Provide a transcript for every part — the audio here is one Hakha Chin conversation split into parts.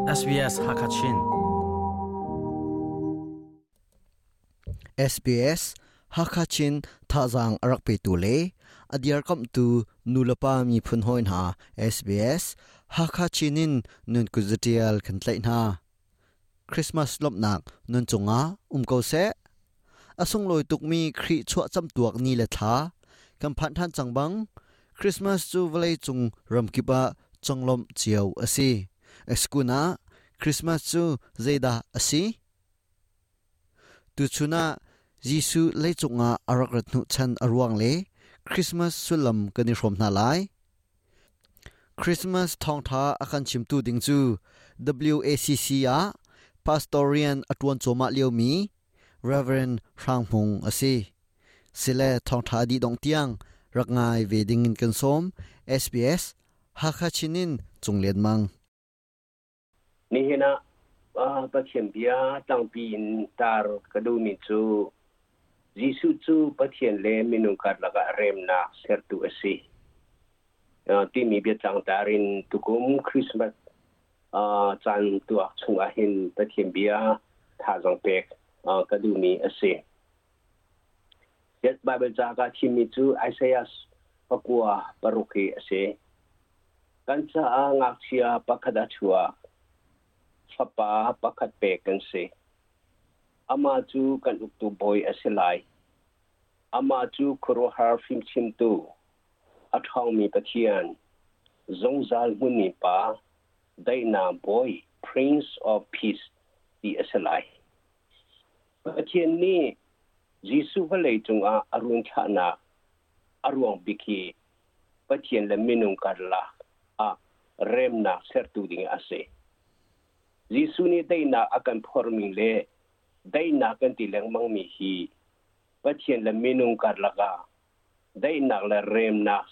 SBS Hakachin. SBS Hakachin thazaang a rak petu le a dirkamhtu nulepa miphun hawi hna SBS Hakachin in nun kut zatial kan tlaih hna. Christmas lawmhnak nun cungah um ko seh. A sunglawi tukmi Khrih chuah camtuak ni le thla kan phanh ṭhan cang bang Christmas cu vawleicung ramkip ah conglawmh cio a si. Eskun ah Christmas cu zeidah a si? Tuchun ah Jesuh leicung ah a rak rat hnuchan a ruang le Christmas sullam kan i hrawm hna lai. Christmas thawngṭha a kan chimtu ding cu WACC ah pastor rian a ṭuan cuahmah liomi Reverend Hrang Hmung a si. Sile thawngṭha dih dongh tiang rak ngai ve ding in kan sawm. SBS Hakha Chin in Cung Lian Mang. Nihin ah Pathian bia tlangpi in tar ka duhmi cu Jesuh cu Pathian le minung karlak ah remnak sertu a si timi biatlang tar in tukum Christmas caan tuak chungah hin Pathian bia thazaang pek ka duhmi a si. Bible ca ka thimmi cu Isaiah 96 hi a si. Kan caah ngakchia pakhat a chuak, fapa pakhat pek kan si. Amah cu kan uktu bawi a si lai. Amah cu khuaruahhar fimchimtu, a ṭhawngmi Pathian, zungzal hmunmi Pa, daihnak bawi, Prince of Peace ti a si lai. Pathian nih Jesuh vawlei cungah a run thlahnak a ruang bik hi Pathian le minung karlak ah remnak sertu ding a si. Jesuh nih daihnak a kan phormi le daihnak kan ti lengmangmi hi Pathian le minung karlak ah daihnak le remnak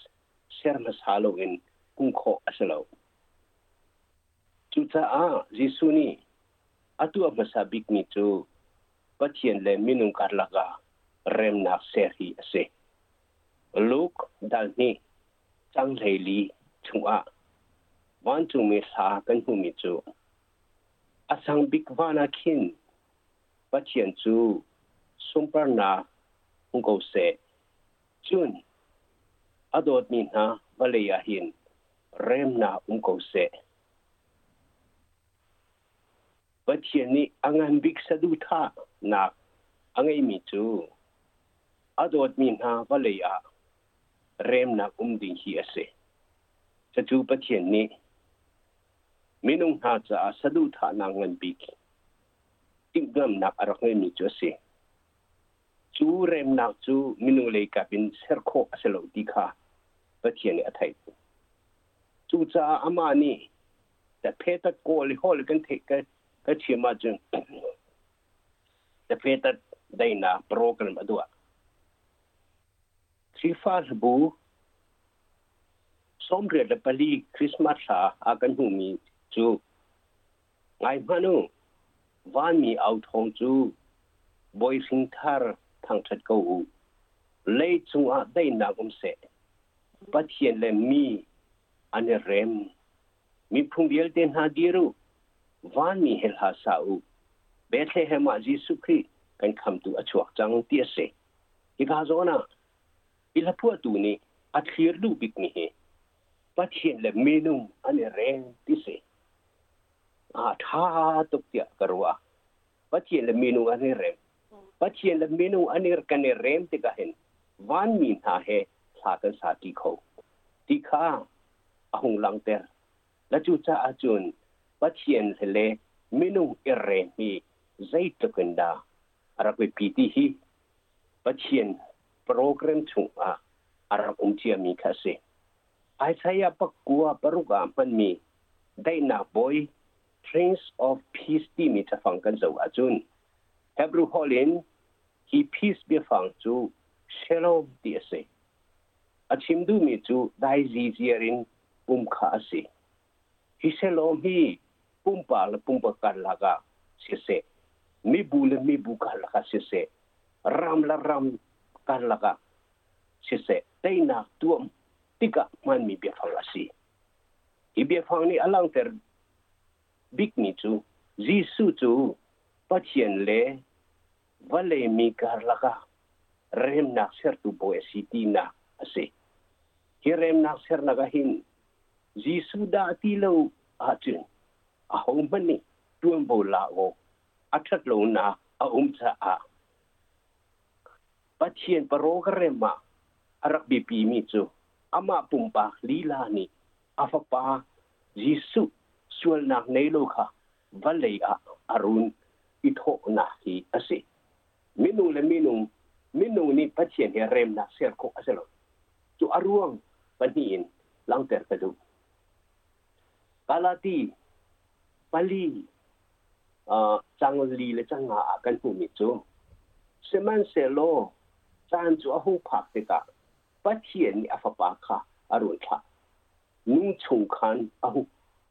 ser hmasa loin hmuh khawh a si lo. Cucaah Jesuh nih a tuah hmasa bikmi cu Pathian le minung karlak ah remnak ser hi a si. Luke dal hnih cang 14 chungah vancungmi hla kan hmuhmi cu a sang bik van ah khin Pathian cu sunparnak hmu ko seh. Cun a dawtmi hna vawlei ah hin remnak um ko seh. Pathian nih a ngan bik saduhthahnak a ngeihmi cu a dawtmi hna vawlei ah remnak um ding hi a si. Cucu Pathian nih minung hna caah saduhthahnak ngan bik timhlamhnak a rak ngeihmi cu a si. Cu remnak cu minung lei kap in ser khawh a si lo ti kha Pathian nih a theih. Cucaah amah nih phe tat kawl i hawl kan theih ka chim ahcun phe tat daihnak program a duah. Khrihfa hlabu 84 Christmas hla a kan hmuhmi cu ngai hmanh u, vanmi au thawng cu bawi hringthar thangṭhat ko u. Lei cungah daihnak um seh. Pathian le mi an i rem. Miphun vialte hna dir u, vanmi he hla sa u. Bethlehem ah Jesuh Khrih kan khamtu a chuak cang ti a si. Hika zawn ah hi hlaphuahtu nih a thlir duh bikmi hi Pathian le minung an i rem ti si. A ṭha tuk tiah ka ruah. Pathian le minung an i rem. Pathian le minung an i kan i rem tikah hin vanmi hna he thla kan sa ṭi kho ti kha a hung langhter. Na cucaah cun Pathian le minung i rem hi zeitluk in dah a rak biapi ti hi Pathian program chungah a rak um ciami kha a si. Isaiah 96 ah hmanmi daihnak bawi Prince of Peace timi cafang kan zoh ahcun Hebrew holh in hi peace biafang cu shalom ti a si. A chim duhmi cu dai ziziar in um kha a si. Hi shalom hi pumpak le pumpak karlak ah siseh, mibu le mibu karlak ah siseh, ram le ram karlak ah siseh, teinak tuam tikah hmanmi biafang a si. Hi biafang nih a langhter bikmi cu Jesuh cu Pathian le vawlei mi karlak ah remnak sertu bawi a si tinak a si. Hi remnak sernak ah hin Jesuh dah ti lo ahcun ahohmanh nih ṭuanvo la awk a ṭhat lonak a um caah Pathian program ah a rak biapimi cu amah pumpak lila nih a fapa Jesuh sualnak nei lo kha vawlei ah a run i thawhnak hi a si. Minung le minung, minung nih Pathian he remnak ser khawh a si lo. Cu a ruang pahnih in langhter ka duh. Galati pali cang li le cang nga ah kan hmuhmi cu sihmanhsehlaw caan cu a hung phak tikah Pathian nih a fapa kha a run thlah. Nu chung khan a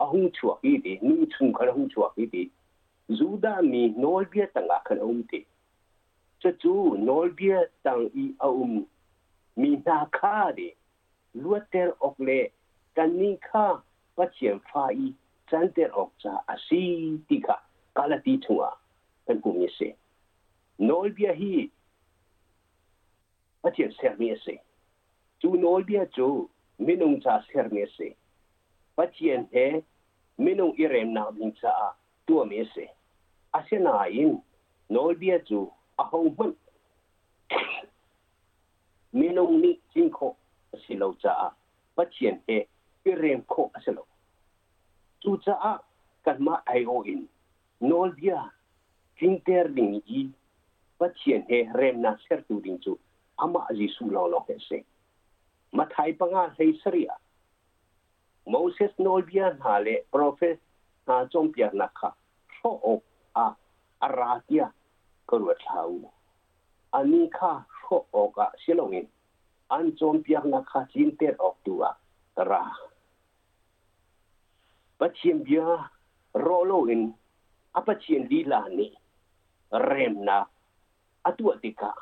hung chuak i ti, nu chung khan a hung chuak i ti, Judah mi nawlbia tangah khan a um ti. Cucu nawlbia tang i a um mi hna kha ti luatter awk le kannih kha Pathian fa i canter awk caah a si ti kha Galati chungah kan hmuhmi a si. Nawlbia hi Pathian sermi a si. Cu nawlbia cu minung ca sermi a si. Pathian he minung i remnak ding caah tuahmi a si. Asinain nawlbia cu ahohmanh minung nih tlin khawh a si lo caah Pathian he i rem khawh a si lo. Cucaah kanmah aiawh in nawlbia tlinter ding i Pathian he remnak sertu ding cu amah Jesuh lawnglawng hi a si. Matthai panga hlei sarih ah Moses nawlbia hna le profet hna cawnpiaknak kha hrawh awk ah a ra tiah ka ruat hlah u. Anih kha hrawh awkah si loin an cawnpiaknak kha tlinter awk tu ah ka ra. Pathian bia rawh loin a Pathian lila nih remnak a tuah tikah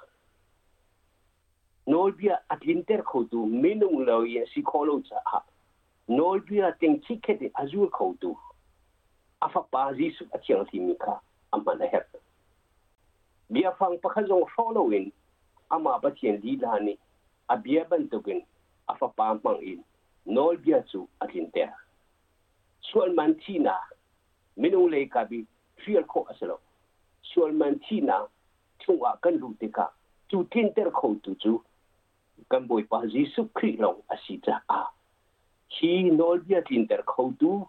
nawlbia a tlinter khotu minung lo i a si khawh lo caah nawlbia teng chikkhet in a zul khotu a fapa Jesuh a thianghlimi kha a hman a herh. Biafang pakhat zong hrawh loin amah Pathian lila nih a bia bantukin a fapa hmang in nawlbia cu a tlinter. Sualman thihnak minung lei kap i hrial khawh a si lo. Sualman thihnak chungah kan luh tikah cu tlinter khotu cu kan Bawipa Jesuh Khrih lawng a si caah hi nawlbia tlinter khotu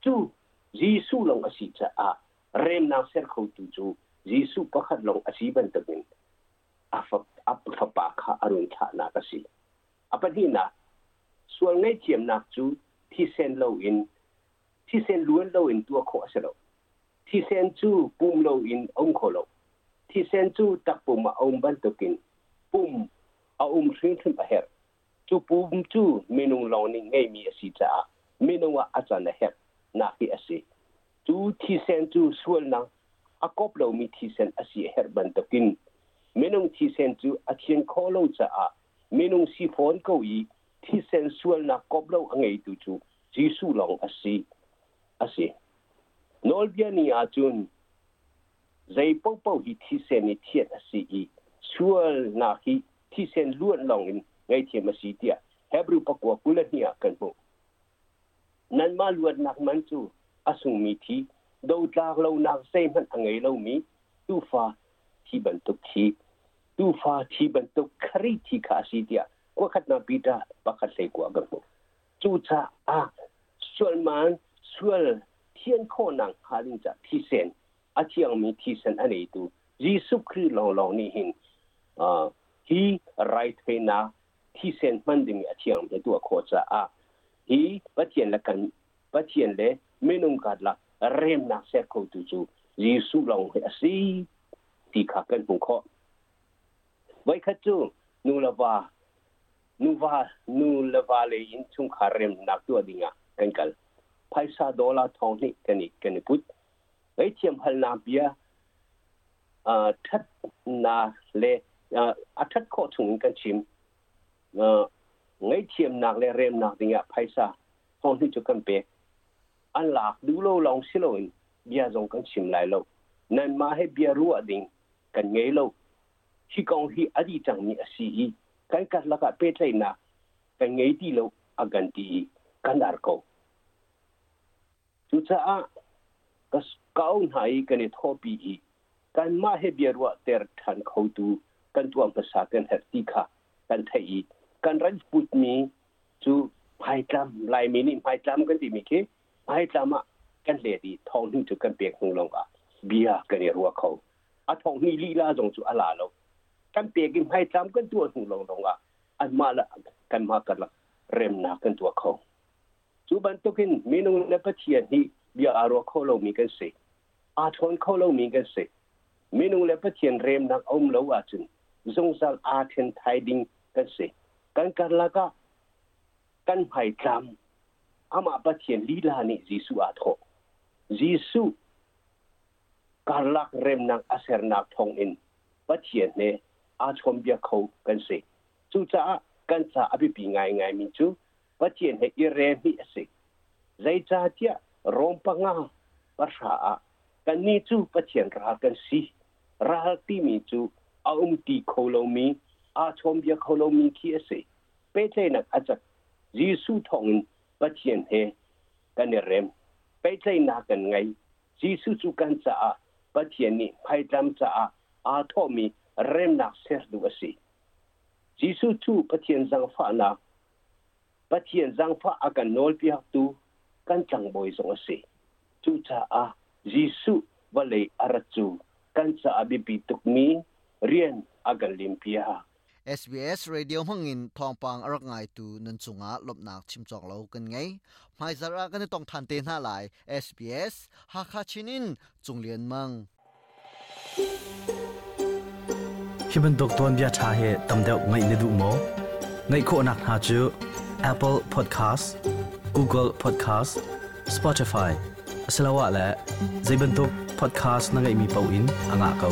cu Jesuh lawng a si caah remnak ser khotu cu Jesuh pakhat lawng a si bantukin a fapa kha a run thlahnak a si. A pahnihnak, sual ngaihthiamnak cu thisen loin thisen luan loin tuah khawh a si lo. Thisen cu pum loin a um kho lo. Thisen cu takpum ah a um bantukin pum a um hrimhrim a herh. Cu pum cu minung lawng nih ngeihmi a si caah minung ah a can a herh nak hi a si. Cu thisen cu sualnak a kop lomi thisen a si a herh bantukin minung thisen cu a thian khawh lo caah minung si fawn ko i thisen sualnak kop lo a ngeitu cu Jesuh lawng a si. A si. Nawlbia ni ahcun zei paohpaoh hi thisen i thianh a si i sualnak hi thisen luan lawng in ngaihthiam a si tiah Hebrew pakua 22 ah kan hmuh. Nanmah luatnak man cu a sungmi thi, dotlak lonak zeihmanh a ngei lomi tuufa thi bantuk thi, tuufa thi bantuk Khrih thi kha a si tiah kuakhatnak Peter pakhat hlei kua kan hmuh. Cucaah sualman sual thian khawhnak hnga ding caah thisen a thiangmi thisen a neitu Jesuh Khrih lawnglawng nih hin hi raithawinak thisen hman ding a thiang he tuah khawh caah hi Pathian le kan Pathian le minung karlak remnak ser khotu cu Jesuh lawng hi a si ti kha kan hmuh khawh. Voikhat cu nu le va nuva nu le va lei in chungkhar remnak tuah ding ah kan kal. Phaisa dollar thong hnih kan i put. Ngaihthiam halnak bia ṭhatnak le a ṭhat khawh chung in kan chim. Ngaihthiamnak le remnak ding ah phaisa thong hnih cu kan pek. An lak duh lo lawng si loin bia zong kan chim lai lo. Nanmah he bia ruah ding kan ngei lo. Hi kong hi a dih cangmi a si i kan karlak ah pehtlaihnak kan ngei ti lo a kan ti i kan ar ko. Cucaah ka kau hna i kan i thawhpi i kanmah he biaruah ter ṭhan khotu kan tuah hmasa kan herh ti kha kan theih i kan rat putmi cu hmaitlam Laimi nih hmaitlam kan timi khi hmaitlam ah kan let i thawng cu kan pek hnu lawng ah bia kan i ruah kho. A thawng hnih lila zong cu a la lo. Kan pek i hmaitlam kan tuah hnu lawng lawng ah anmah le kanmah karlak remnak kan tuah kho. Cu bantukin minung le Pathian hi bia aa ruah kho lomi kan si. Aa ṭhawn kho lomi kan si. Minung le Pathian remnak a um lo ahcun zungzal aa ṭhen thai ding kan si. Kan karlak ah kan hmaitlam amah Pathian lila nih Jesuh aa thawh. Jesuh karlak remnak a sernak thawngin Pathian he aa chawnbia kho kan si. Cucaah kan ca a biapi ngaingaimi cu Pathian he i rem hi a si. Zeicahtiah Rom panga pahra ah kannih cu Pathian ral kan si. Ral timi cu a um ti kho lomi, aa chawnbia kho lomi khi a si. Pehtlaihnak a cak. Jesuh thawngin Pathian he kan i rem. Pehtlaihnak kan ngei. Jesuh cu kan caah Pathian nih hmaitlam caah aa thawhmi remnak sertu a si. Jesuh cu Pathian zaangfahnak Pathian zaangfah a kan nawlpiaktu kan tlangbawi zong a si. Cucaah Jesuh vawlei a rat cu kan caah biapi tukmi rian a kan limpiak. SBS Radio hmangin thawngpang a rak ngaitu nan cungah lawmhnak chim cawk lo kan ngei. Hmaizarh ah kan i tong than te hna lai. SBS Hakha Chin in Cung Lian Mang. Hi bantuk tuanbia ṭha hi tam deuh ngaih na duh maw? Ngaih khawhnak hna cu Apple Podcast, Google Podcast, Spotify asiloah le zei bantuk podcast na ngeihmi paoh in a ngah ko.